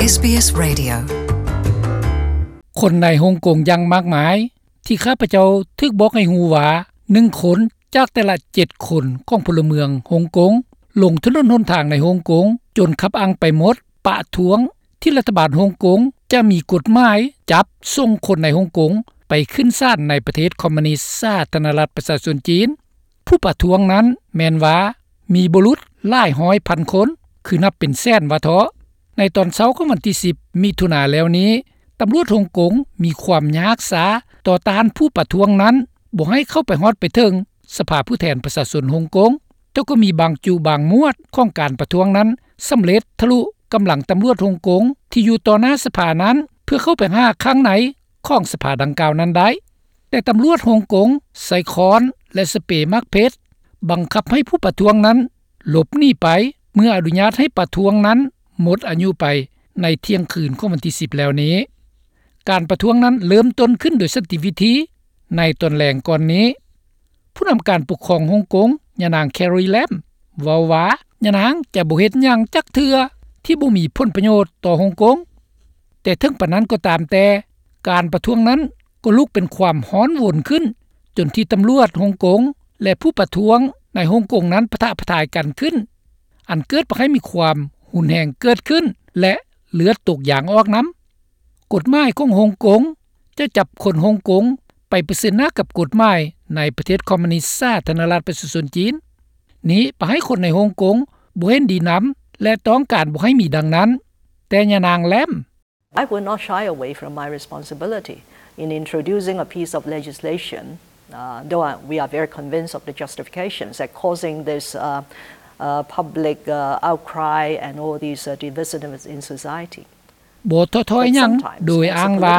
ເອສບີເອສ Radio. ຄົນໃນຮົງກົງຢ່າງມາກມາຍ ທີ່ຂ້າພະເຈົ້າຖືກບອກໃຫ້ຮູ້ວ່າ ໜຶ່ງຄົນຈາກແຕ່ລະເຈັດຄົນຂອງພົນລະເມືອງຮົງກົງ ລົງຖະໜົນຫົນທາງໃນຮົງກົງ ຈົນຄັບອັ່ງໄປໝົດ ປະທ້ວງທີ່ລັດຖະບານຮົງກົງຈະມີກົດໝາຍຈັບສົ່ງຄົນໃນຮົງກົງໄປຂຶ້ນສານໃນປະເທດຄອມມູນິດສາທາລະນະລັດປະຊາຊົນຈີນ. ຜູ້ປະທ້ວງນັ້ນແມ່ນວ່າມີບຸລຸດຫຼາຍຮ້ອຍພັນຄົນ ຄືນັບເປັນແສນວ່າເທາະ. ໃນຕອນເຊົ້າຂອງວັນທີສິບ ມິຖຸນາແລ້ວນີ້ ຕຳຫຼວດຮົງກົງມີຄວາມຍາກຊ້າຕໍ່ຕ້ານຜູ້ປະທ້ວງນັ້ນ ບໍ່ໃຫ້ເຂົ້າໄປຮອດໄປເຖິງສະພາຜູ້ແທນປະຊາຊົນຮົງກົງ, ແຕ່ກໍມີບາງຈຸບາງໝວດຂອງການປະທ້ວງນັ້ນ ສຳເລັດທະລຸກຳລັງຕຳຫຼວດຮົງກົງທີ່ຢູ່ຕໍ່ໜ້າສະພານັ້ນ ເພື່ອເຂົ້າໄປຫາຂ້າງໃນຂອງສະພາດັ່ງກ່າວນັ້ນໄດ້. ແຕ່ຕຳຫຼວດຮົງກົງໃຊ້ຄ້ອນ ແລະ ສະເປໝາກເພັດ ບັງຄັບໃຫ້ຜູ້ປະທ້ວງນັ້ນຫຼົບໜີໄປ ເມື່ອອະນຸຍາດໃຫ້ປະທ້ວງນັ້ນໝົດອາຍຸໄປໃນທ່ຽງຄືນຂອງວັນທີສິບແລ້ວນີ້. ການປະທ້ວງນັ້ນເລີ່ມຕົ້ນຂຶ້ນໂດຍສັນຕິວິທີໃນຕອນແລງກ່ອນນີ້. ຜູ້ນຳການປົກຄອງຮົງກົງ ຍານາງ Carrie Lam ເວົ້າວ່າ ຍານາງຈະບໍ່ເຮັດຫຍັງຈັກເທື່ອທີ່ບໍ່ມີຜົນປະໂຫຍດຕໍ່ຮົງກົງ. ແຕ່ເຖິງປານນັ້ນກໍຕາມແຕ່ ການປະທ້ວງນັ້ນກໍລຸກເປັນຄວາມຮ້ອນວົນຂຶ້ນ ຈົນທີ່ຕຳຫຼວດຮົງກົງ ແລະ ຜູ້ປະທ້ວງໃນຮົງກົງນັ້ນປະທະປະທາຍກັນຂຶ້ນ ອັນເກີດໃຫ້ມີຄວາມຮຸນແຮງເກີດຂຶ້ນ ແລະ ເລືອດຕົກຢາງອອກນຳ. ກົດໝາຍຂອງຮົງກົງຈະຈັບຄົນຮົງກົງໄປປະເຊີນໜ້າກັບກົດໝາຍໃນປະເທດຄອມມູນິດສາທາລະນະລັດປະຊາຊົນຈີນ. ນີ້ປະໃຫ້ຄົນໃນຮົງກົງບໍ່ເຫັນດີນຳ ແລະ ຕ້ອງການບໍ່ໃຫ້ມີດັ່ງນັ້ນ. ແຕ່ຍານາງ Lam I will not shy away from my responsibility in introducing a piece of legislation, uh, though I, we are very convinced of the justifications that causing this, uh, uh, public, uh, outcry and all these, uh, divisiveness in society. ບໍ່ທໍ້ຖອຍຫຍັງ ໂດຍອ້າງວ່າ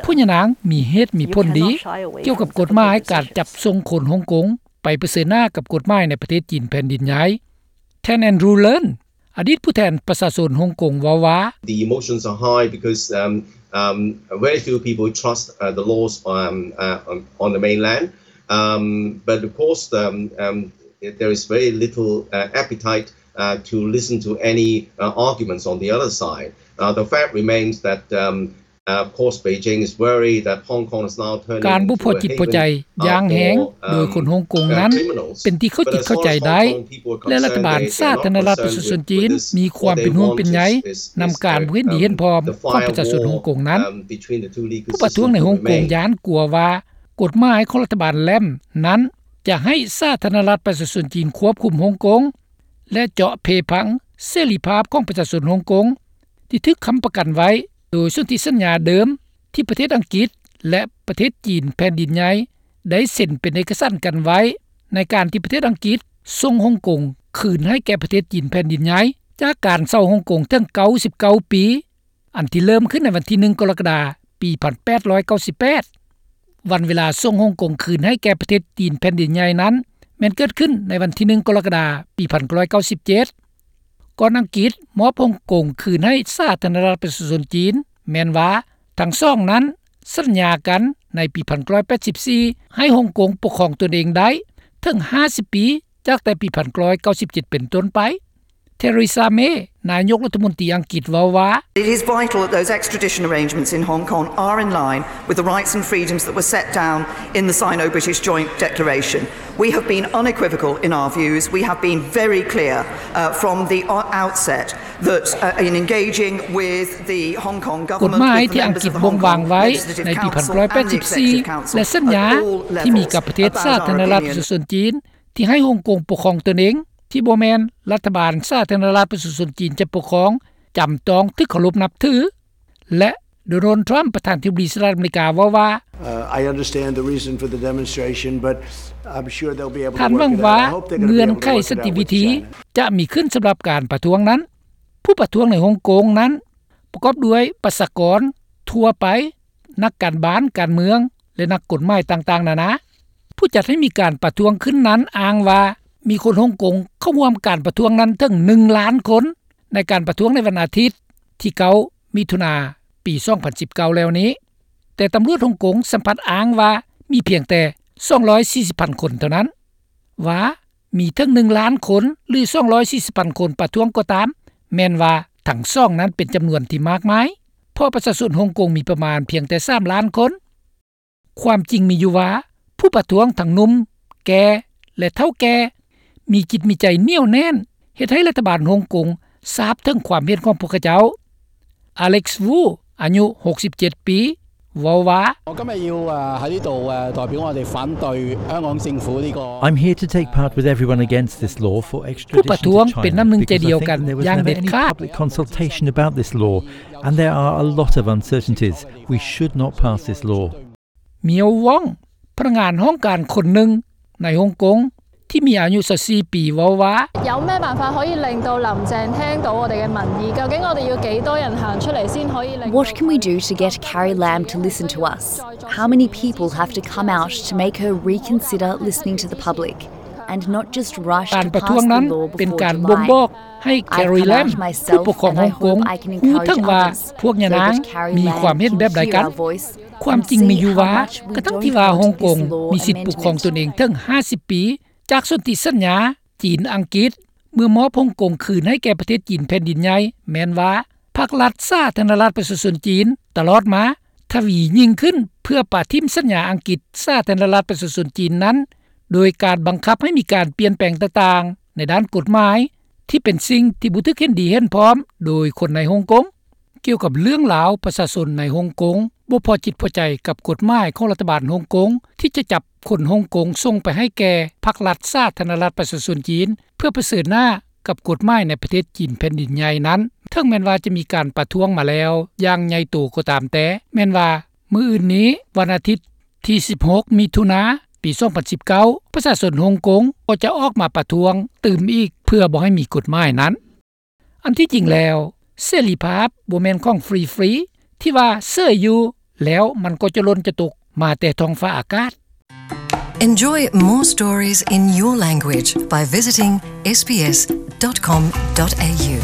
ຜູ້ຍານາງມີເຫດມີຜົນດີ ກ່ຽວກັບກົດໝາຍການຈັບສົ່ງຄົນຮົງກົງໄປປະເຊີນໜ້າກັບກົດໝາຍໃນປະເທດຈີນແຜ່ນດິນໃຫຍ່. ທ່ານ Andrew Leung ອະດີດຜູ້ແທນປະຊາຊົນຮົງກົງເວົ້າວ່າ The emotions are high because, um, um, very few people trust, uh, the laws, um, uh, on, on the mainland. Um, but of course, um, um, there is very little, uh, appetite, uh, to listen to any, uh, arguments on the other side. Uh, the fact remains that, um, uh, of course, Beijing is worried that Hong Kong is now turning into a haven, uh, for, um, uh, criminals. ການບໍ່ພໍຈິດພໍໃຈຢ່າງແຮງໂດຍຄົນຮົງກົງນັ້ນ ເປັນທີ່ເຂົ້າຈິດເຂົ້າໃຈໄດ້ ແລະ ລັດຖະບານສາທາລະນະລັດປະຊາຊົນຈີນມີຄວາມເປັນຫ່ວງເປັນໃຍນຳການບໍ່ເຫັນດີເຫັນພ້ອມຂອງປະຊາຊົນຮົງກົງນັ້ນ. ຜູ້ປະທ້ວງໃນຮົງກົງຢ້ານກົວວ່າ ກົດໝາຍຂອງລັດຖະບານ Lam ນັ້ນຈະໃຫ້ສາທາລະນະລັດປະຊາຊົນຈີນຄວບຄຸມຮົງກົງ ແລະ ເຈາະເພພັງເສລີພາບຂອງປະຊາຊົນຮົງກົງ ທີ່ຖືກຄ້ຳປະກັນໄວ້ໂດຍສົນທິສັນຍາເດີມ ທີ່ປະເທດອັງກິດ ແລະ ປະເທດຈີນແຜ່ນດິນໃຫຍ່ ໄດ້ເຊັນເປັນເອກະສານກັນໄວ້ ໃນການທີ່ປະເທດອັງກິດສົ່ງຮົງກົງຄືນໃຫ້ແກ່ປະເທດຈີນແຜ່ນດິນໃຫຍ່ ຈາກການເຊົ່າຮົງກົງເຖິງເກົ້າສິບເກົ້າປີ ອັນທີ່ເລີ່ມຂຶ້ນໃນວັນທີໜຶ່ງ ກໍລະກະດາ ປີພັນແປດຮ້ອຍເກົ້າສິບແປດ. ວັນເວລາສົ່ງຮົງກົງຄືນໃຫ້ແກ່ປະເທດຈີນແຜ່ນດິນໃຫຍ່ນັ້ນ ແມ່ນເກີດຂຶ້ນໃນວັນທີໜຶ່ງ ກໍລະກະດາ ປີພັນເກົ້າຮ້ອຍເກົ້າສິບເຈັດ ກ່ອນອັງກິດມອບຮົງກົງຄືນໃຫ້ສາທາລະນະລັດປະຊາຊົນຈີນ ແມ່ນວ່າທັງສອງນັ້ນສັນຍາກັນໃນປີພັນເກົ້າຮ້ອຍແປດສິບສີ່ ໃຫ້ຮົງກົງປົກຄອງຕົນເອງໄດ້ເຖິງຫ້າສິບປີ ຈາກແຕ່ປີພັນເກົ້າຮ້ອຍເກົ້າສິບເຈັດເປັນຕົ້ນໄປ. Theresa May ນາຍົກລັດຖະມົນຕີອັງກິດເວົ້າວ່າ It is vital that those extradition arrangements in Hong Kong are in line with the rights and freedoms that were set down in the Sino-British Joint Declaration. We have been unequivocal in our views. We have been very clear, uh, from the o-, outset that, uh, in engaging with the Hong Kong government, with the members of the Hong Kong Legislative Council and the Executive Council at all levels about our opinion. ກົດໝາຍທີ່ອັງກິດບົ່ງວາງໄວ້ໃນປີພັນເກົ້າຮ້ອຍແປດສິບສີ່ ແລະ ສັນຍາທີ່ມີກັບປະເທດສາທາລະນະລັດປະຊາຊົນຈີນ ທີ່ໃຫ້ຮົງກົງປົກຄອງຕົນເອງ ທີ່ບໍ່ແມ່ນລັດຖະບານສາທາລະນະລັດປະຊາຊົນຈີນຈະປົກຄອງ ຈຳຕ້ອງຖືກເຄົາລົບນັບຖື ແລະ ໂດນັລ ທຣຳ ປະທານທິບໍດີສະຫະລັດອາເມລິກາເວົ້າວ່າ Uh, I understand the reason for the demonstration, but I'm sure they'll be able to work it out. ທ່ານຫວັງວ່າເງື່ອນໄຂສັນຕິວິທີຈະມີຂຶ້ນສຳລັບການປະທ້ວງນັ້ນ. ຜູ້ປະທ້ວງໃນຮົງກົງນັ້ນ ປະກອບດ້ວຍປະຊາກອນທົ່ວໄປ, ນັກການບ້ານການເມືອງ ແລະ ນັກກົດໝາຍຕ່າງໆນານາ. ຜູ້ຈັດໃຫ້ມີການປະທ້ວງຂຶ້ນນັ້ນອ້າງວ່າ ມີຄົນຮົງກົງເຂົ້າຮ່ວມການປະທ້ວງນັ້ນເຖິງໜຶ່ງລ້ານຄົນ ໃນການປະທ້ວງໃນວັນອາທິດທີເກົ້າ ມິຖຸນາ ປີສອງພັນສິບເກົ້າແລ້ວນີ້. ແຕ່ຕຳຫຼວດຮົງກົງສຳພັດອ້າງວ່າມີພຽງແຕ່ສອງຮ້ອຍສີ່ສິບພັນຄົນເທົ່ານັ້ນ. ວ່າມີເຖິງໜຶ່ງລ້ານຄົນ ຫຼື ສອງຮ້ອຍສີ່ສິບພັນຄົນປະທ້ວງກໍຕາມ, ແມ່ນວ່າ ທັງສອງນັ້ນເປັນຈຳນວນທີ່ມາກມາຍ ເພາະປະຊາຊົນຮົງກົງມີປະມານພຽງແຕ່ສາມລ້ານຄົນ. ຄວາມຈິງມີຢູ່ວ່າ ຜູ້ປະທ້ວງທັງໜຸ່ມ, ແກ່ ແລະ ເຖົ້າແກ່ ມີຈິດມີໃຈໜຽວແໜ້ນ ເຮັດໃຫ້ລັດຖະບານຮົງກົງຊາບເຖິງຄວາມເຫັນຂອງພວກເຂົາເຈົ້າ. Alex Wu ອາຍຸຫົກສິບເຈັດປີ ເວົ້າວ່າ 我今日要誒喺呢度誒代表我哋反對香港政府呢個 I'm here to take part with everyone against this law for extradition to China ຜູ້ປະທ້ວງເປັນນ້ຳໜຶ່ງໃຈດຽວກັນຢ່າງເດັດຂາດ because there was never any public consultation about this law and there are a lot of uncertainties. We should not pass this law. ມຽວ ວອງ ພະນັກງານຫ້ອງການຄົນໜຶ່ງໃນຮົງກົງ ທີ່ມີອາຍຸຊາວສີ່ປີ ເວົ້າວ່າ 有咩辦法可以令到林鄭聽到我哋嘅民意？究竟我哋要幾多人行出嚟先可以令 What can we do to get Carrie Lam to listen to us? How many people have to come out to make her reconsider listening to the public and not just rush ການ to ປະທ້ວງ pass ນັ້ນ the law ເປັນ before ການບົ່ງບອກ July? ໃຫ້ Carrie Lam ຜູ້ປົກຄອງຮົງກົງ ຮູ້ເຖິງວ່າພວກຍານາງມີຄວາມເຫັນແບບໃດກັນ. ຄວາມຈິງມີຢູ່ວ່າ ກະທັ່ງທີ່ວ່າຮົງກົງມີສິດປົກຄອງຕົນເອງເຖິງຫ້າສິບປີ ຈາກສົນທິສັນຍາ ຈີນ-ອັງກິດ ເມື່ອມອບຮົງກົງຄືນໃຫ້ແກ່ປະເທດຈີນແຜ່ນດິນໃຫຍ່ ແມ່ນວ່າ ພັກລັດສາທາລະນະລັດປະຊາຊົນຈີນ ຕະຫຼອດມາ ທະວີຍິ່ງຂຶ້ນ ເພື່ອປະຖິ້ມສັນຍາອັງກິດສາທາລະນະລັດປະຊາຊົນຈີນນັ້ນ ໂດຍການບັງຄັບໃຫ້ມີການປ່ຽນແປງຕ່າງໆ ໃນດ້ານກົດໝາຍ ທີ່ເປັນສິ່ງທີ່ບໍ່ຖືກເຫັນດີເຫັນພ້ອມໂດຍຄົນໃນຮົງກົງ. ກ່ຽວກັບເລື່ອງລາວ ປະຊາຊົນໃນຮົງກົງບໍ່ພໍຈິດພໍໃຈກັບກົດໝາຍຂອງລັດຖະບານຮົງກົງ ທີ່ຈະຈັບຄົນຮົງກົງສົ່ງໄປໃຫ້ແກ່ພັກລັດສາທາລະນະລັດປະຊາຊົນຈີນ ເພື່ອປະເຊີນໜ້າກັບກົດໝາຍໃນປະເທດຈີນແຜ່ນດິນໃຫຍ່ນັ້ນ ເຖິງແມ່ນວ່າຈະມີການປະທ້ວງມາແລ້ວຢ່າງໃຫຍ່ໂຕກໍຕາມແຕ່ ແມ່ນວ່າມື້ອື່ນນີ້ ວັນອາທິດ ທີສິບຫົກ ມິຖຸນາ ປີສອງພັນສິບເກົ້າ ປະຊາຊົນຮົງກົງກໍຈະອອກມາປະທ້ວງຕື່ມອີກ ເພື່ອບໍ່ໃຫ້ມີກົດໝາຍນັ້ນ. ອັນທີ່ຈິງແລ້ວ ເສລີພາບບໍ່ແມ່ນຂອງຟຣີໆ ທີ່ວ່າເສີຍຢູ່ແລ້ວມັນກໍຈະຫຼົ່ນຈະຕົກມາແຕ່ທ້ອງຟ້າອາກາດ. Enjoy more stories in your language by visiting sbs.com.au.